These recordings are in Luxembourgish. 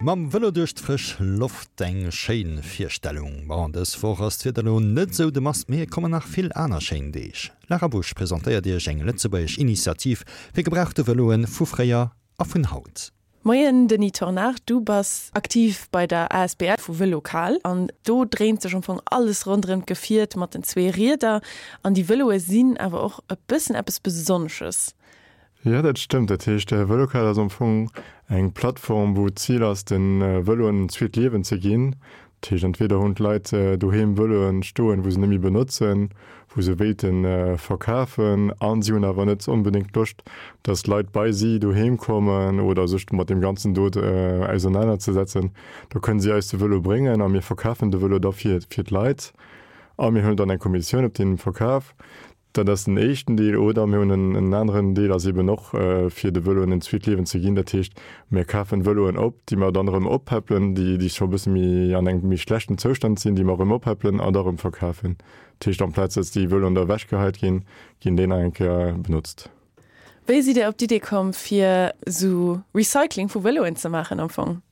Mam Vëlo duerch d'frësch Loft, eng schéin Virstellung. Bon, dës Woch ass d'Wieder lo net sou de Mast, mee et kommen nach vill aner schéin Deeg. Lara Busch presentéiert iech eng lëtzebuergesch Initiativ fir gebrauchte Vëloen vu fréier a vun haut. Moien Denis Tornard, du bass aktiv bei der asbl vu Vël'okal an do dréint sech am Fong alles ronderëm d'Gefiert mat den zwee Rieder an déi Vëloe sinn awer och e bëssen eppes Besonnesches. Jo, dat stëmmt. Dat heescht, Vël'okal ass am Fong eng Plattform, wou d'Zil ass, de Vëloen en zweet Liewen ze ginn. Dat heescht, entweder hunn d'Leit doheem Vëloen stoen, wou se net méi benotzen, wou se wéilte verkafen, a si hunn awer net onbedéngt Loscht, datt Leit bei si doheem kommen oder sech mat deem Ganzen do ausernanerzesetzen. Da kënnen si eis de Vëlo bréngen a mir verkafen de Vëlo da fir d'Leit a mir huelen dann eng Kommissioun op deem Verkaf. Dat ass den éischten Deel. Oder mir hunn en aneren Deel, ass eeben och fir de Vëloen en zweet Liewen ze ginn. Dat heescht, mir kafen Vëloen op, déi mer dann erëm oppäppelen, déi déi scho e bësse méi an engem méi schlechten Zoustand sinn, déi mer erëm oppäppelen an da erëm verkafen. Dat heescht, amplaz datt déi Vëloen da ewechgeheit ginn, ginn déi nach eng Kéier benotzt. Wéi sidd Dir op d'Idee komm, fir esou Recycling vu Vëloen ze maachen am Fong?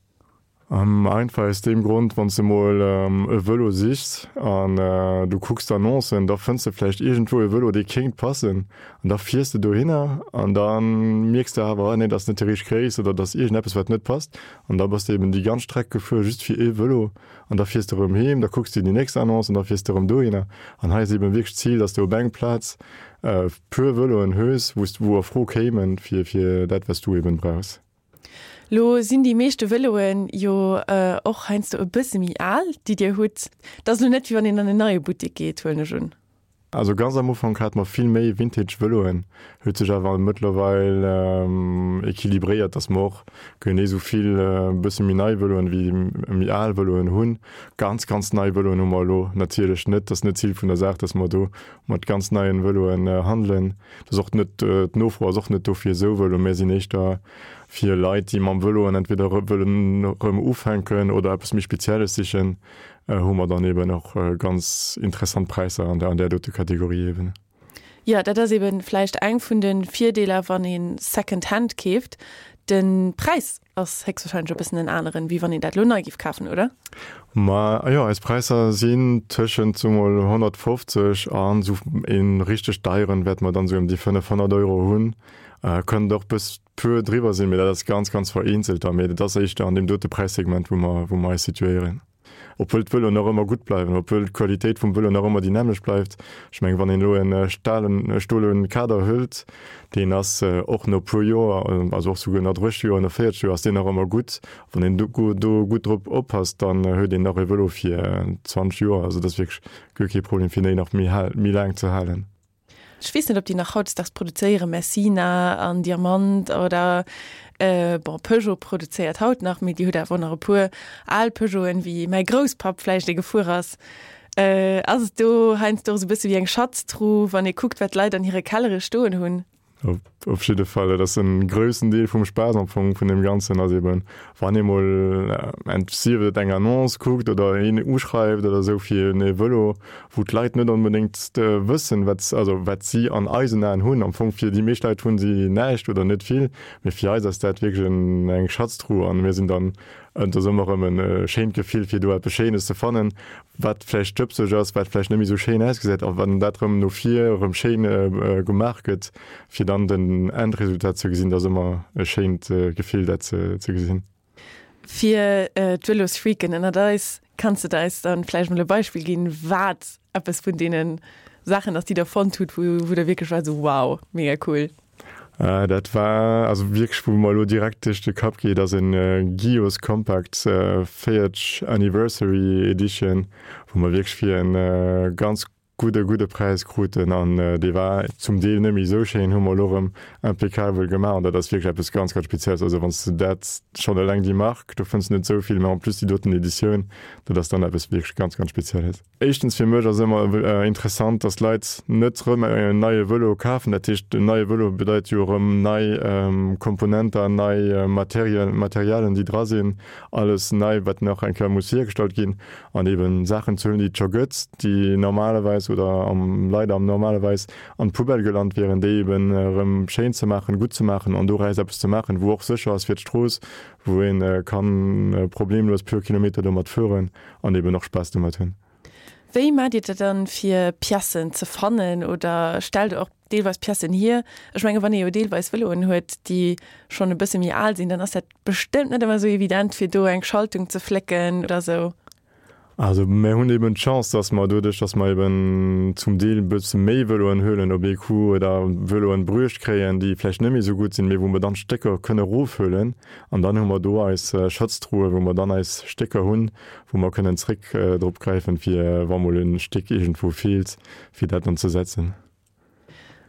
Einfach aus deem Grond, wann s de mol e Vëlo sichs an du kucks d'Annoncen, da fënns de vläicht iergendwou e Vëlo, dee kéint passen an da fiers de dohinner an da mierks de awer, ah nee, dat ass net déi richteg Gréisst oder dat ass iergendeppes, wat net passt an da bass de eben déi ganz Streck gefuer just fir ee Vëlo an da fiers de erëm heem, da kucks de déi nächst Annonce an da fiers de erëm dohinner. An hei ass eben wierklech d'Zil, dass de op eng Plaz puer Vëloen hues, wou s, wou a Fro kéimen fir dat, wat s du eben brauchs. Lo sinn déi meeschte Vëloen jo och heiansdo e bësse méi al, déi Dir hutt. Dat ass lo net, wéi wann een an en neie Buttek geet, huelen ech un. Also ganz am Ufank hate mer vill méi Vintage Vëloen, huet sech awer mëttlerweil equilibréiert, dass mer och genee sou vill e bësse méi nei Vëloen wéi méi al Vëloen hunn. Ganz, ganz nei Vëloen hu mer elo natierlech net, dat ass net d'Zil vun der Saach, dass mer do mat ganz neien Vëloen handelen. Dat ass och net, d'Nofro ass och net do fir esou Vëlo. Mir sinn éischter fir Leit, déi mam Vëloen entweder wëllen erëm ufänken oder eppes méi Spezielles sichen, hu mer dann eben och ganz interessant Präisser an där dote Kategorie eben. Jo, dat ass eben vläicht eng vun de Virdeeler, wann ee Second Hand keeft. De Präis Ass héchstwahrscheinlech e bëssen en aneren, wéi wann een dat elo nei giff kafen, oder? Ma jo, eis Präisser sinn tëschent soe mol 150 an esou ee richteg deieren wäerte mer dann esou ëm déi 500 Euro hunn. Kënnt och bëss puer driwwer sinn, mee dat ass ganz, ganz vereenzelt da. Mee dat ass éischter an deem dote Präissegment, wou mer, wou mer eis situéieren. Obwuel d'Vëloen nach ëmmer gutt bleiwen, obwuel d'Qualitéit vum Vëlo nach ëmmer déi nämmlecht bleift. Ech mengen, wann een elo e stalen, e stole Kader hëlt, deen ass och no puer Joer, also och souguer no 30 Joer, no 40 Joer ass deen nach ëmmer gutt. Wann een do gutt drop oppasst, dann huet een nach e Vëlo fir 20 Joer. Also dat ass wierklech guer kee Problem, fir déi nach méi méi laang ze halen. Ech weess net, ob déi nach hautdesdaags produzéieren, Messina an Diamant oder, bon, Peugeot produzéiert haut nach, mee Dir hutt awer och nach e puer al Peugeoten, wéi mäi Grousspapp vläicht ee gefuer ass. Ass et do heiansdo och esou e bësse wéi eng Schatztruh, wann ee kuckt, wat d'Leit an hire Kellere stoen hunn? Op jidde Fall, dat ass en groussen Deel vum Spaass am Fong vun deem Ganzen, ass eben, wann ee mol, sief et eng Annonce kuckt oder een uschreift oder esou fir e Vëlo, wou d'Leit net onbedéngt wëssen, wat, also wat si an eisen Aen hunn. Am Fong fir déi meescht Leit hunn si näischt oder net vill, mee fir eis ass dat wierklech eng Schatztruh an mir sinn dann, et ass ëmmer erëm e schéint Gefill fir do eppes Schéines ze fannen, wat vläicht stëbseg ass, wat vläicht net méi esou schéin ausgesäit, a wann dat erëm no vir erëm schéin gemaach gëtt, fir dann den Endresultat ze gesinn, dat ass ëmmer e schéint Gefill, dat ze gesinn. Fir d'Vëlosfreaken ënnert eis, kanns de eis dann vläicht mol e Beispill ginn, wat eppes vun deene Saachen ass, déi der fonnt hutt, wou der wierklech waart esou, wow, mega cool? Dat war also wierklech, wou mer elo direkt duerch de Kapp geet, ass en Gios Compact 40 Anniversary Edition, wou mer wierklech fir en ganz gudde, gudde Präis kruten. An dee war zum Deel net méi esou schéin, hu mer elo erëm impeccabel gemaach. An dat ass wierklech eppes ganz, ganz Spezielles. Also wann s de dat schonn eleng déi Mark, do fënns de net esou vill, mä en plus déi doten Editioun, dat ass dann eppes wierklech ganz, ganz Spezielles. Éischtens fir mech ass ëmmer interessant, dass d'Leit net rëm en neie Vëlo kafen. Dat heescht, en neie Vëlo bedeit jo erëm nei Komponenter, nei Materialien, déi dra sinn, alles nei, wat nach eng Kéier muss hiergestallt ginn. An eben Saachen ze hunn, déi et scho gëtt, déi normalerweis. normalerweis oder am leider am normalerweis an d'Poubelle gelant wieren, déi eben erëm schéin ze maachen, gutt ze maachen an doraus eppes ze maachen, wou och sécher ass fir d'Strooss, wou ee kann problemlos puer Kilometer domat fueren an eben och Spaass domat hunn. Wéi maacht Dir dat dann fir Piècen ze fannen oder stellt Der och deelweis Piècen hier? Ech menge wann ee jo deelweis Vëloen huet, déi schonn e bësse méi al sinn, dann ass dat bestëmmt net ëmmer esou evident fir do eng Schaltung ze flécken oder esou. Also mir hunn eben d'Chance, dass mer doduerch, dass mer eben zum Deel e bësse méi Vëloen huelen op ee Coup oder Vëloen bruecht kréien, déi vläicht net méi esou gutt sinn, mee wou mer dann d'Stécker kënne erofhuelen an dann hu mer do eis Schatztruhe, wou mer dann eis Stécker hunn, wou mer kënnen zréck drop gräifen, fir wa mol e Stéck iergendwou feelt, fir dat dann ze setzen.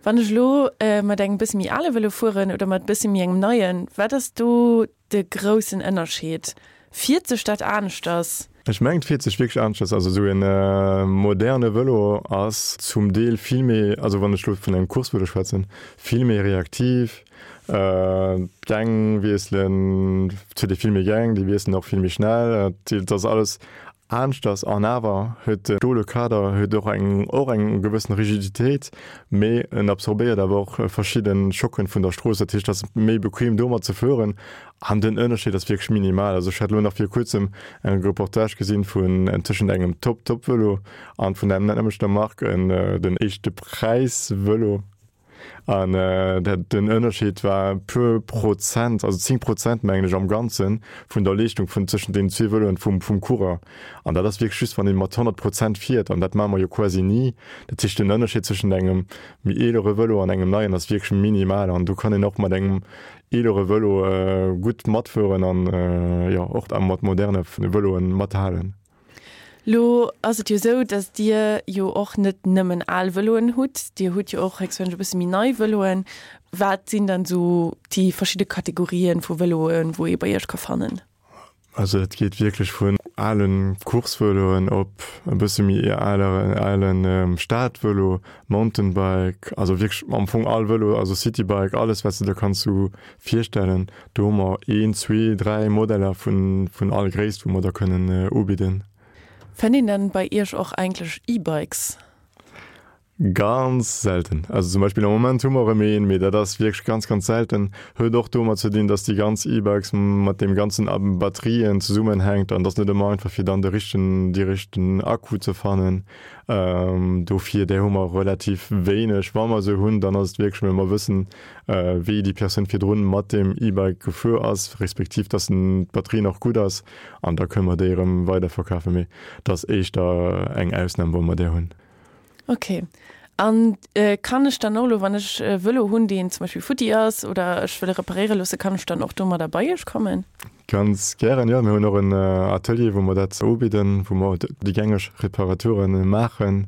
Wann ech elo mat engem bësse méi ale Vëlo fueren oder mat bësse méi engem neien, wat ass do de groussen Ënnerscheed? Fiert sech dat aneschters? Ech mengen, et fiert sech wierklech aneschters. Also esou e moderne Vëlo ass zum Deel vill méi, also wann ech elo vun engem Coursevëlo schwätzen, vill méi reaktiv. D'Gäng wiesselen, et huet ee vill méi Gäng, déi wiesselen och vill méi schnell. Et ass alles Aneschters an awer huet de stole Kader huet och eng och eng gewëssen Rigiditéit, mee en absorbéiert awer och verschidde Schocken vun der Strooss. Dat heescht, et ass méi bequem domat ze fueren an den Ënnerscheed ass wierklech minimal. Also ech hat elo nach vir kuerzem eng Reportage gesinn vun tëschent engem Top-Top-Vëlo an vun der nämmlechter Mark en den éischte Präis-Vëlo. An den Ënnerscheed war e puer Prozent, also 10 Prozent mengen ech am Ganzen, vun der Leeschtung vun tëschent deenen zwee Vëloen vum vum Coureur. An dat ass wierklech just, wann ee mat 100 Prozent fiert, an dat maache mer jo quasi ni. Dat heescht, den Ënnerscheed tëschent engem méi eelere Vëlo an engem neien ass wierklech minimal. An do kann een och mat engem eelere Vëlo gutt matfueren an, jo, och mat moderne Vëloen mathalen. Lo ass et jo esou, datt Dir jo och net nëmmen al Vëloen hutt, Dir hutt jo och héchstwahrscheinlech e bësse méi nei Vëloen. Wat sinn dann esou déi verschidde Kategorien vu Vëloen, wou ee bei Iech ka fannen? Also et geet wierklech vun ale Coursevëloen op e bësse méi alere ale Stadvëlo, Mountainbike, also wierklech am Fong all Vëlo, also Citybike, alles wat s de der kanns sou virstellen. Do hu mer een, zwee, dräi Modeller vun, vun all Gréisst, wou mer da kënnen ubidden. Fënnt een dann bei Iech och eigentlech E-Bikes? Ganz selten. Also zum Beispill am Moment hu mer erëm een, mee dat ass wierklech ganz, ganz selten. Huet och domat ze dinn, dass déi ganz E-Bikes mat deem ganzen Batterien zesummenhänkt an et ass net ëmmer einfach fir dann de richtegen, dee richtegen Akku ze fannen. Dofir, där hu mer relativ wéineg. Wa mer se hunn, dann ass et wierklech, well mer wëssen, wéi déi Persoun virdrun mat deem E-Bike gefuer ass, respektiv dass d'Batterie nach gutt ass an da kënne mer déi erëm weiderverkafen. Mee et ass éischter eng Ausnam, wa mer där hunn. Ok. An kann ech dann och elo, wann ech e Vëlo hunn, deen zum Beispill futti ass oder ech wëll e reparéiere loosse, kann ech dann och domadder bei Iech kommen? Ganz gären, jo. Mir hunn och en Atelier, wou mer dat ubidden, wou mer déi gängeg Reparature maachen.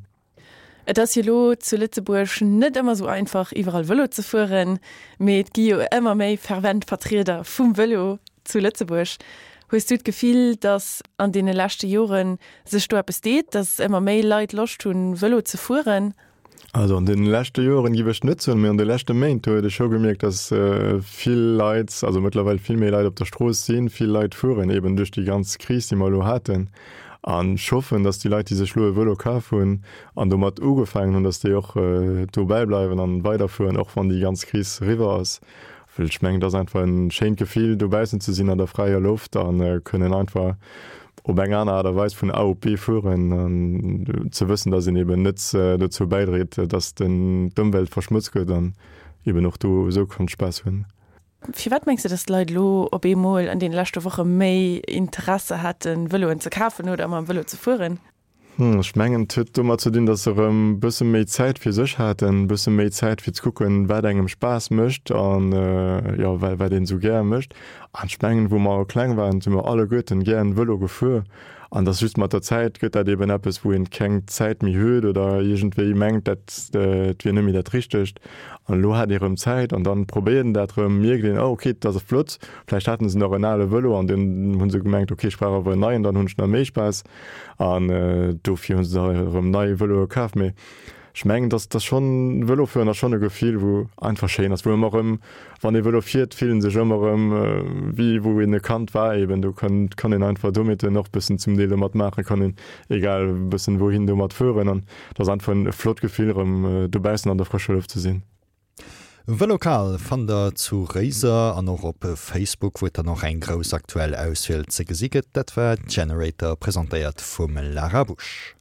Et ass jo lo zu Lëtzebuerg net ëmmer sou einfach iwwerall Vëlo ze fueren, mee et gi jo ëmmer méi fervent Vertrieder vum Vëlo zu Lëtzebuerg. Hues du d'Gefill, datt an deene leschte Jore sech do eppes deet, datt ëmmer méi Leit Loscht hunn Vëlo ze fueren? Also an deene leschte Joren giff ech net soen, mee an de leschte Méint huet ech scho gemierkt, datt vill Leit, also mëttlerweil vill méi Leit op der Strooss sinn, vill Leit fueren, eben duerch déi ganz Kris déi mer elo haten. An ech hoffen, dass déi Leit, déi sech elo e Vëlo kaf hunn an domat ugefaangen hunn, dass déi och dobäi bleiwen an weiderfueren, och wann déi ganz Kris eriwwer ass. Well ech mengen, et ass einfach e schéint Gefill, dobaussen ze sinn an der fräier Loft a kënnen einfach op eng aner Aart a Weis vun A op B fueren an ze wëssen, dass een eben net dozou bäidréit, dass d'Ëmwelt verschmotzt gëtt an eben och do esou kann Spaass hunn. Firwat mengs de, datt d'Leit elo op eemol an deene leschte Woche méi Interesse haten, Vëloen ze kafen oder mam Vëlo ze fueren? Ech mengen, et huet domat ze dinn, datt se erëm e bësse méi Zäit fir sech haten, e bësse méi Zäit fir ze kucken, wat engem Spaass mécht an, jo, wat een esou gär mécht. An ech mengen, wou mer kleng waren, si mer alleguerten gären Vëlo gefuer. An dass just mat der Zäit gëtt dat eben eppes, wou een keng Zäit méi huet oder iergendwéi mengt, dat et wier net méi dat Richtegt. An elo hat ee rëm Zäit an dann probéiert een dat rëm, mierkt een, oh okay, dat ass flott. Vläicht haten se nach en ale Vëlo an dunn hu se gemengt, okay, ech brauch awer en neien, dann hunn ech nach méi Spaass. An dofir hu se da erëm nei Vëloe kaf. Mee. Ech mengen, dass dass schonn, Vëlofueren ass schonn e Gefill, wou einfach schéin ass, wou ëmmer erëm, wann ee Vëlo fiert, fillt en sech ëmmer erëm wéi wou een e Kand war eben. Do kann kann een einfach Dommheeten och bëssen zum Deel domat maachen, kann een egal bëssen wouhin domat fueren an et ass einfach en flott Gefill erëm dobaussen an der frëscher Loft ze sinn. Vël'okal fannt der zu Réiser an och op Facebook, wou et dann och eng grouss aktuell Auswiel ze gesi gëtt. Dat war Generator, presentéiert vum Lara Busch.